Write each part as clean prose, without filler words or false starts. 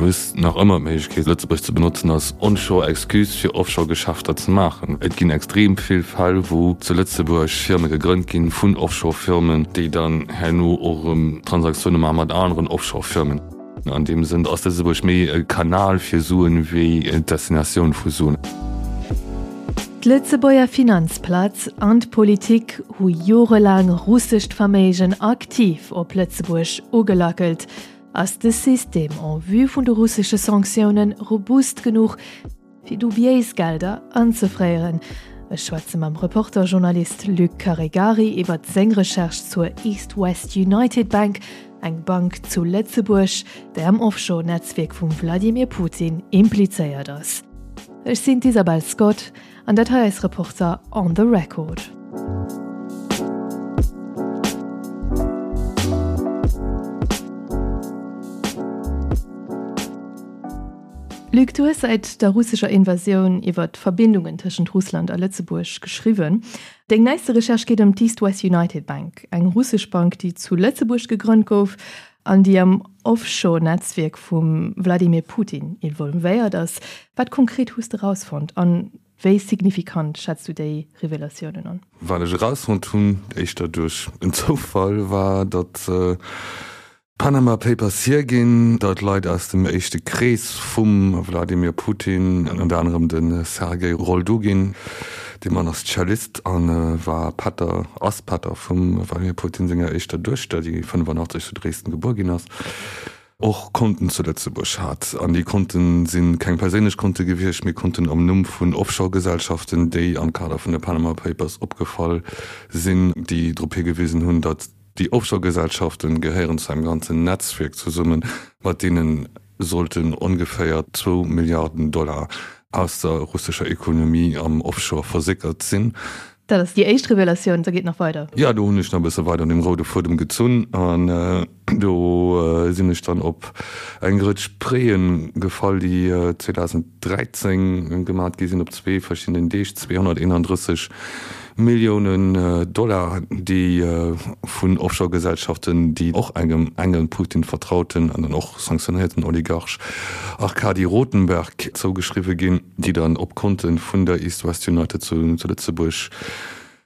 hues nach ëmmer d'Méiglechkeet, Lëtzebuerg ze benotzen als Onshore-Excuse fir Offshore-Geschäfter ze maachen. Et ginn extrem vill Fäll, wou zu Lëtzebuerg Firme gegrënnt ginn vun Offshore-Firmen, déi dann herno och erëm Transaktioune maache mat aneren Offshore-Firmen. An deem Sënn ass Lëtzebuerg méi e Kanal fir Suen wéi d'Destinatioun vu Suen. D'Lëtzebuerger Finanzplaz an d'Politik hu jorelaang russescht Verméigen aktiv op Lëtzebuerg ugelackelt. Ass de System en vue vun de russesche Sanktiounen robust genuch, fir dubiéis Gelder anzefréieren? Ech schwätze mam Reporter-Journalist Luc Caregari iwwer seng Recherche zur East West United Bank, eng Bank zu Lëtzebuerg, déi am Offshore-Netzwierk vum Vladimir Putin implizéiert ass. Ech sinn d'Isabel Scott An dat hei eis Reporter on the Record. Luc, du hues säit der russescher Invasioun iwwer d'Verbindungen tëschent Russland a Lëtzebuerg geschriwwen. Deng neiste Recherche geet ëm d'East West United Bank, eng russesch Bank, déi zu Lëtzebuerg gegrënnt gouf an déi am Offshore-Netzwierk vum Wladimir Putin involvéiert ass. Wat konkret hues de rausfonnt an wéi signifikant schätz du déi Revelatiounen an? Wat ech erausfonnt hunn, éischter duerch en Zoufall, war, datt d'Panama Papers hierginn, datt Leit aus dem éischte Krees vum Wladimir Putin, ënnert anerem de Sergei Roldugin, dee Mann ass Cellist a war Pätter, ass Pätter vum Wladimir Putin senger éischter Duechter, déi 85 zu Dresden gebuer ginn ass, och Konten zu Lëtzebuerg hat. An déi Konten si keng perséinlech Konte gewiescht, mee Konten am Numm vun Offshore-Gesellschaften, déi am Kader vun de Panama Papers opgefall sinn, déi drop higewisen hunn, datt déi Offshore-Gesellschaften gehéieren zu engem ganzen Netzwierk zesummen, mat deene sollten ongeféier zwou Milliarden Dollar aus der russescher Ekonomie am Offshore versickert sinn. Dat ass déi éischt Revelatioun, da geet nach weider. Jo, do hunn ech nach e bësse weider un dem roude Fuedem gezunn an do sinn ech dann op eng Rëtsch Préen gefall, déi 2013 gemat gi sinn op zwee verschiddenen Deeg, 231 Milliounen Dollar, déi vun Offshore-Gesellschaften, déi och engem engen Putin-Vertrauten an dann och sanktionéierten Oligarch Arkadi Rotenberg zougeschriwwe ginn. déi dann op Konte vun der East West United zu Lëtzebuerg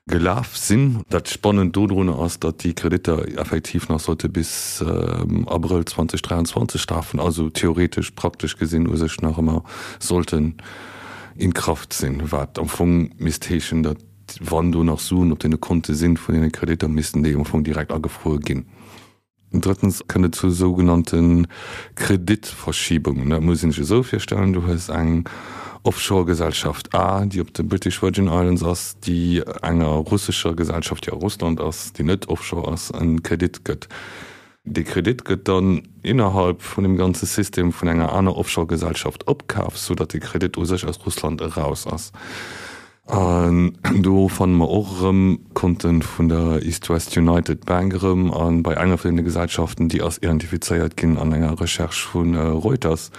gelaf sinn. Dat Spannend dodrun ass, datt déi Kreditter effektiv nach sollte bis Abrëll 2023 lafen, also theoretesch, praktesch gesinn u sech nach ëmmer sollten in Kraft sinn, wat am Fong misst heeschen, datt wann do nach Suen op deene Konte sinn vun deene Kreditter, missten déi am Fong direkt agefruer ginn. Drëttens kënnt et zu sougenannte Kreditverschiebungen. Dat muss een sech esou virstellen, Du hues eng Offshore-Gesellschaft A, déi op de British Virgin Islands ass, déi enger russescher Gesellschaft, déi a Russland ass, déi net offshore ass, e Kredit gëtt. Dee Kredit gëtt dann innerhalb vun deem ganze System vun enger aner Offshore-Gesellschaft opkaf, soudatt de Kredit u sech aus Russland eraus ass. An do fanne mer och erëm Konte vun der East West United Bank erëm. A bei enger vun deene Gesellschaften, déi ass identifizéiert ginn an enger Recherche vu Reuters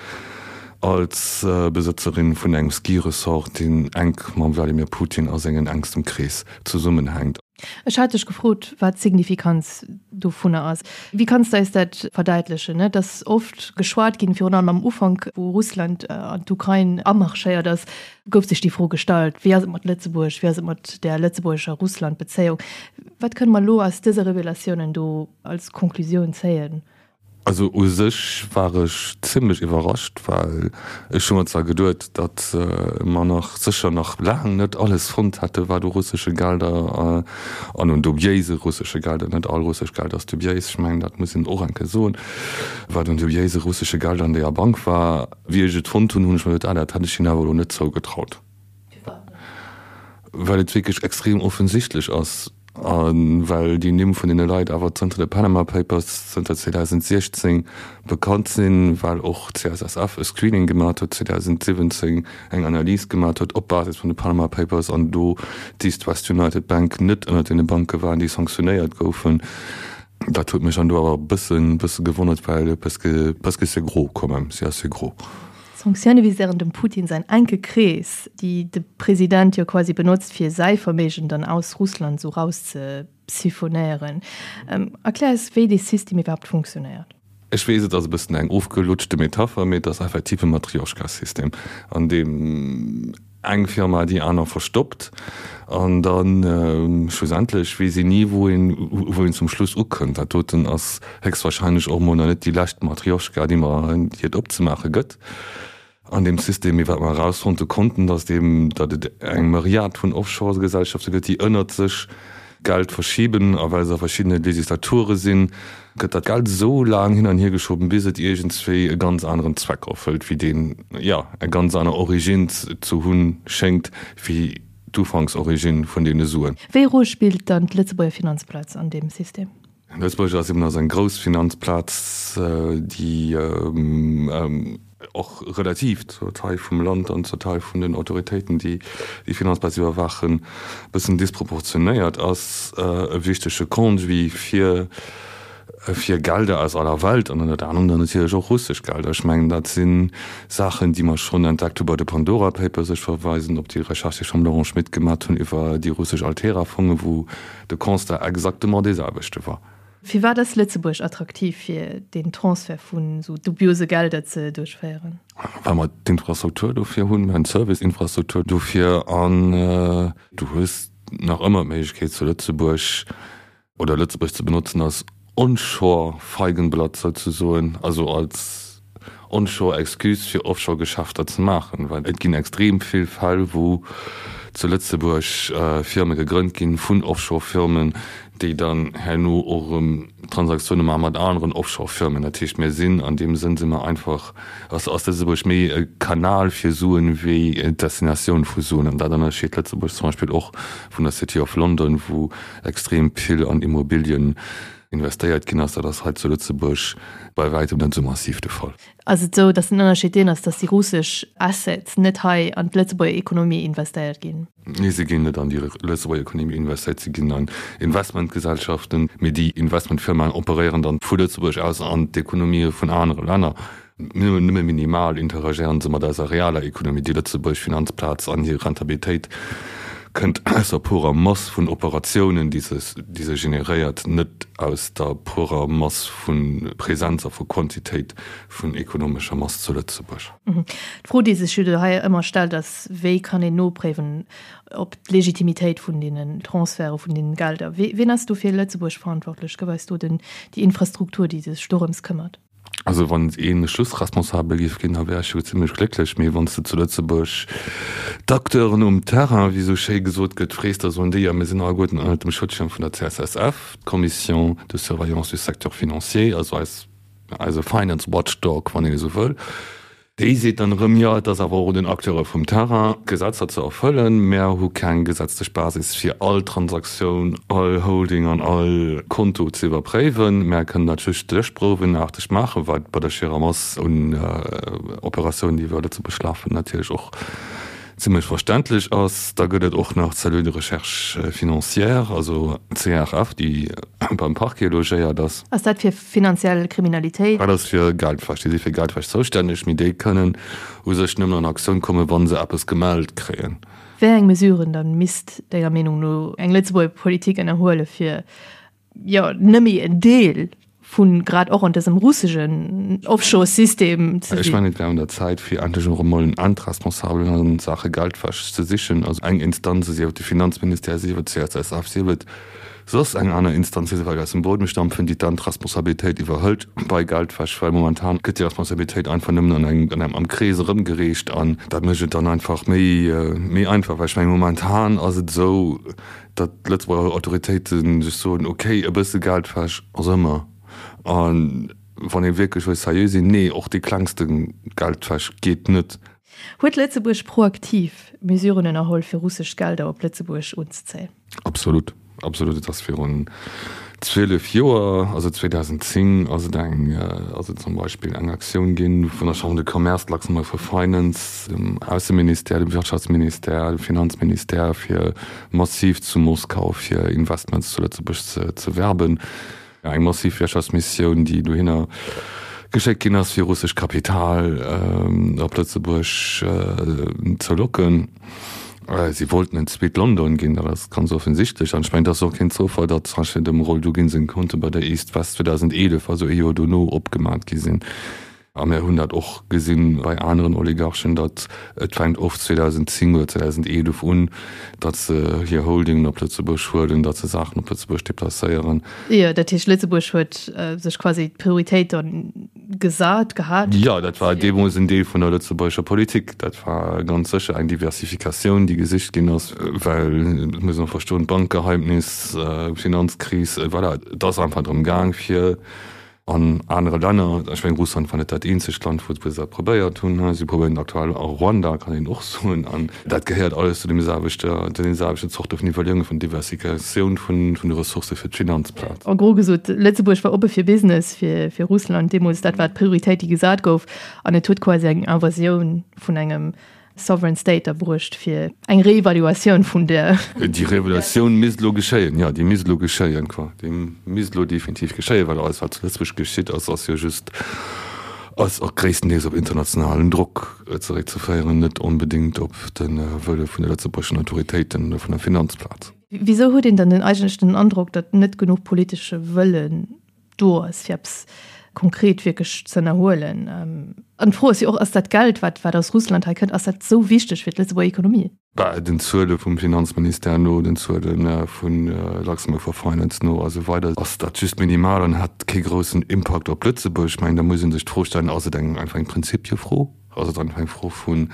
als Besëtzerin vun engem Ski-Resort, deen enk mam Wladimir Putin a sengen enkstem Krees zesummenhänkt. Ech hat dech gefrot, wat d'Signifikanz dovunner ass. Wéi kanns de eis dat verdäitlechen? Et ass oft geschwat ginn, virun allem am Ufank, wou Russland an d'Ukrain amarschéiert ass, gouf sech déi Fro gestallt, Wéi ass et mat Lëtzebuerg? Wéi ass et mat där lëtzebuergescher Russland-Bezéiung? Wat kënne mer elo aus dëse Revelatiounen do als Konklusioun zéien? Also u sech war ech zimlech iwwerrascht, well ech hu mer zwar geduet, datt mer nach sécher nach laang net alles fonnt hätte wat u russesche Gelder an un dubiéise russesche Gelder, net all russesch Geld ass dubiéis, ech mengen dat muss een och eng Kéier soen, wat un dubiéise russesche Gelder an deeër Bank war. Wéi ech et fonnt hunn, hunn ech mer geduet, ah dat hätt ech hinnen awer elo net zougetraut, well et wierklech extrem offensichtlech ass a well déi Nimm vun deene Leit awer zënter de Panama Papers, zënter 2016 bekannt sinn, well och d'CSSF e Screening gemat huet 2017, eng Analys gemat huet op Basis vun de Panama Papers an do d'East West United Bank net ënnert deene Banke war, déi sanktionéiert goufen. Dat huet mech dann do awer e bëssen, bësse gewonnert, well parce que, parce que c'est gros quand même, c'est assez gros. D'Sanktioune viséieren dem Putin säin enke Krees, déi de President jo quasi benotzt, fir säi Verméigen dann aus Russland esou rauszesiphonéieren. Erklär eis, wéi dee System iwwerhaapt funktionéiert. Ech weess, et ass e bëssen eng ofgelutschte Metapher, mee et ass effektiv e Matrioschka-System, an deem eng Firma déi aner verstoppt an da schlussendlech weess een ni, wou een, wou een zum Schluss ukënnt. Dat doten ass héchstwahrscheinlech och emol nach net déi lescht Matrioschka, déi mer, déi et opzemaache gëtt an deem System. Mee wat mer erausfonnte konnten, datt eben, datt et eng Myriad vun Offshore-Gesellschafte gëtt, déi ënnert sech Geld verschiben, a well se a verschiddene Legislature sinn, gëtt dat Geld esou laang hin an hier geschoben, bis et iergendswéi e ganz aneren Zweck erfëllt, wéi deen, jo, eng ganz aner Origine ze hunn schéngt, wéi d'Ufanksorigine vun deene Suen. Wéi Roll spillt dann d'Lëtzebuerger Finanzplaz an deem System? Lëtzebuerg ass eben ass eng grouss Finanzplaz, déi och relativ zur Taille vum Land an zur Taille vun den Autoritéiten, déi déi Finanzplaz iwwerwaachen, e bëssen disproportionéiert ass, e wichtege Conduit fir fir Gelder aus aller Welt an ënnert anerem dann natierlech och russesch Gelder. Ech mengen, dat si Saachen, déi mer schonn entdeckt hu bei de Pandora Papers. Ech verweisen op déi Recherche, déi ech mam Laurent Schmit gemat hunn iwwer déi russesch Altera-Fongen, wou de Constat exactement dee selwechte war. Firwat ass Lëtzebuerg attraktiv fir deen Transfert vun esou dubiose Gelder ze duerchféieren? Well mer d'Infrastruktur dofir hunn, mer hunn d'Service-Infrastruktur dofir an du hues nach ëmmer d'Méiglechkeet zu Lëtzebuerg oder Lëtzebuerg ze benotzen als Onshore-Feigenblatt souzesoen, also als Onshore Excuse fir Offshore Geschäfter ze maachen, well et ginn extrem vill Fäll wou zu Lëtzebuerg Firme gegrënnt ginn vun Offshore Firmen, déi dann herno och erëm Transaktioune maache mat aneren Offshore Firmen. Dat heescht mir sinn an deem Sënn si mer einfach, ass ass Lëtzebuerg méi e Kanal fir Suen wéi d'Destinatioun vu Suen. An dat ënnerscheet Lëtzebuerg zum Beispill och vun der City of London, wou extrem vill an Immobilien investéiert ginn ass. Dat ass hei zu Lëtzebuerg bei wäitem net esou massiv de Fall. Ass et esou, datt den Ënnerscheed deen ass, datt déi russesch Assets net hei an d'Lëtzebuerger Ekonomie investéiert ginn? Nee, se ginn net an déi Lëtzebuerger Ekonomie investéiert, se ginn an Investmentgesellschaften, mee déi Investmentfirmaen operéieren dann vu Lëtzebuerg aus an d'Ekonomië vun anere Länner. Nëmme minimal interagéieren se mat eiser realer Ekonomie. Déi lëtzebuergesch Finanzplaz an hir Rentabilitéit kënnt aus der purer Mass vun Operatiounen, déi se, déi se generéiert, net aus der purer Mass vu Präsenz a vu Quantitéit vun ekonomescher Mass zu Lëtzebuerg. D'Fro, déi sech jo do hei ëmmer stellt, ass, Wéi kann een nopréiwen, op d'Legitimitéit vun deenen Transferte vun deenen Gelder? Wien ass do fir Lëtzebuerg verantwortlech? Gouf eis do den, déi Infrastruktur, déi sech dorëms këmmert? Also wann een Schlussresponsabel géif ginn, da wär ech jo zimlech glécklech. Mee wann s de zu Lëtzebuerg d'Acteuren um Terrain, wéi esou schéi gesot gëtt, frees, da soen déi, jo mir sinn alleguerten ënnert dem Schutzschirm vun der CSSF, d'Commission de surveillance du secteur financier, also eis, eise Finance Watchdog, wann een esou wëll. Déi seet dann erëm, jo, et ass awer och un den Acteure vum Terrain, d'Gesetzer ze erfëllen. Mär hu keng gesetzlech Basis, fir all Transaktioun, all Holding an all Konto ze iwwerpréiwen. Mär kënnen dat just stéchprouwenaarteg maachen, wat bei der schierer Mass un Operatiounen, déi iwwer Lëtzebuerg lafen, natierlech och zimlech verständlech ass. Da gëtt et och nach d'Cellule de recherche financière, also d'CRF, déi beim Parquet logéiert ass. Ass dat fir finanziell Kriminalitéit? Dat ass fir Geldwäsch. Déi si fir Geldwäsch zoustänneg, mee déi kënnen u sech nëmmen an Aktioun kommen, wa se eppes gemellt kréien. Wéi eng Mesuren dann misst denger Meenung no eng Lëtzebuerger Politik ënnerhuele fir jo nëmme en Deel vu grad och an dësem russegen Offshore-System ze sinn. Ech mengen, et wär un der Zäit, fir endlech och emol en Endresponsabelen a Saache Geldwäsch ze sichen, also eng Instanz, sief et de Finanzministère, sief et d'CSSF, sief et soss eng aner Instanz, déi se vläicht aus dem Buedem stampfen, déi d'Endresponsabilitéit iwwerhëlt bei Geldwäsch, well momentan gëtt déi Responsabilitéit einfach nëmmen an engem, an engem, am Krees erëmgereecht an dat mécht et dann einfach méi, méi einfach, well ech mengen, momentan ass et esou, datt d'Lëtzebuerger Autoritéite sech soen, ok, e bësse Geldwäsch ass ëmmer, a wann ee wierklech wëll seriö sinn, nee, och déi klengste Geldwäsch geet net. Huet Lëtzebuerg proaktiv Mesuren ënnerholl fir russesch Gelder op Lëtzebuerg unzezéien? Absolut, absolut. Et ass virun 12 Joer, also 2010, ass et eng, ass et zum Beispill eng Aktioun ginn vun der Chambre de Commerce, Luxembourg for Finance, dem Ausseministère, dem Wirtschaftsministère, dem Finanzministère, fir massiv zu Moskau fir Investments zu Lëtzebuerg ze werben. Eng massiv Wirtschaftsmissioun, déi dohinner geschéckt ginn ass, fir russescht Kapital op Lëtzebuerg ze locken. Si wollten en zweet London ginn, dat ass ganz offensichtlech. An ech mengen, et ass och keen Zoufall, datt zum Beispill dem Roldugin seng Konte bei der East West 2011, also ee Joer dono, opgemat gi sinn. A mir hunn dat och gesinn bei aneren Oligarchen, datt et fänkt oft 2010 oder 2011 un, datt se hir Holdingen op Lëtzebuerg huelen, datt se Saachen op Lëtzebuerg deplacéieren. Jo, dat heescht, Lëtzebuerg huet sech quasi d'Prioritéit dann gesat gehat. Jo, dat war deemools en Deel vun der lëtzebuergescher Politik. Dat war ganz sécher eng Diversifikatioun, déi gesicht ginn ass, well, et muss een och verstoen, d'Bankgeheimnis, d'Finanzkris, voilà, et ass einfach drëm gaang, fir An anere Länner, ech mengen Russland war net dat eenzegt Land, wou se dat probéiert hunn, si probéieren et aktuell a Ruanda, kann een och soen. An dat gehéiert alles zu deem selwechte, zu deene selwechten Zorte vun Iwwerleeungen, vun Diversifikatioun vun de Ressourcë fir d'Finanzplaz. En gros gesot, Lëtzebuerg war oppe fir Business fir Russland deemools. Dat war d'Prioritéit, déi gesat gouf. An et huet quasi eng Invasioun vun engem Sovereign State erbruecht fir eng Reevaluatioun vun der. Déi Reevaluatioun misst elo geschéien, jo, déi misst elo geschéien, quoi. Déi misst elo definitiv geschéien, well alles, wat zu Lëtzebuerg geschitt ass, ass jo just, ass och gréisstendeels op internationalen Drock zeréckzeféieren, net onbedéngt op de Wëlle vun de lëtzebuergeschen Autoritéiten oder vun der Finanzplaz. Wisou huet een dann den eigentlech den Androck, datt net genuch politesche Wëllen do ass, fir eppes konkret wierklech ze ënnerhuelen. An d'Fro ass jo och, Ass dat Geld, wat wat aus Russland hei kënnt, ass dat esou wichteg fir d'Lëtzebuerger Ekonomie? Bah, den Zuele vum Finanzministère no, den Zuele vu Luxembourg for Finance no a sou weider ass dat just minimal an hätt kee groussen Impakt op Lëtzebuerg. Ech mengen, da muss ee sech d'Fro stellen, Ass et eng einfach eng Prinzipiefro? Ass et einfach eng Fro vun,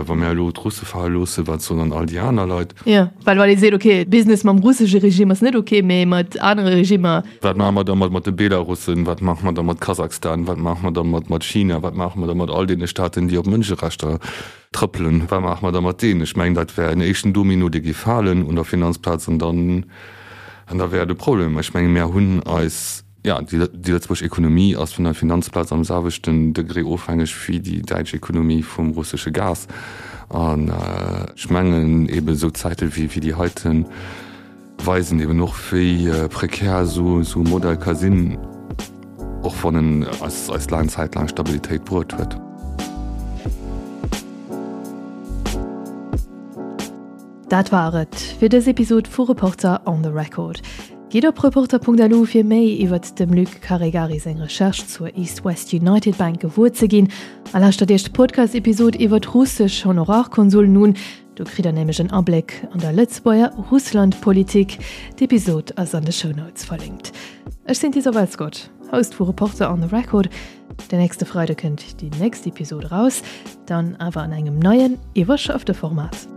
wa mir elo d'Russe fale loossen, wat soen dann all déi aner Leit? Jo, well wann ee seet, okay, Business mam russesche Regime ass net okay, mee mat anere Regimmer. Wat maache mer da mat de Belarussen? Wat maache mer da mat Kasachstan? Wat maache mer da mat China? Wat maache mer da mat all deene Staaten, déi op Mënscherechter trëppelen? Wat maache mer da mat deenen? Ech mengen, dat wär en éischten Domino, dee géif falen un der Finanzplaz an dann, an da wär et e Problem. Ech menge mir hunn eis. Jo, déi lëtzebuergesch Ekonomie ass vun der Finanzplaz am selwechten Degré ofhängeg wéi déi däitsch Ekonomie vum russesche Gas. An ech mengen eeben esou Zäite wéi déi heite weisen eeben och, wéi prekär esou e Modell ka sinn, och wann en eis laang Zäit laang Stabilitéit bruet huet. Dat war et fir dës Episod vu Reporter on the Record. Gitt op reporter.lu fir méi iwwert dem Luc Caregari seng Recherche zur East West United Bank gewuer ze ginn a lauschtert Iech d'Podcast-Episod iwwert russesch Honorarkonsullen un. Do kritt der nämlech en Abléck an der Lëtzebuerger Russland-Politik. D'Episod ass an de Shownotes verlinkt. Ech sinn d'Isabel Scott, Host vu Reporter on the Record. Den nächste Freide kënnt déi nächst Episod eraus, dann awer an engem neien, iwwerschaffte Format.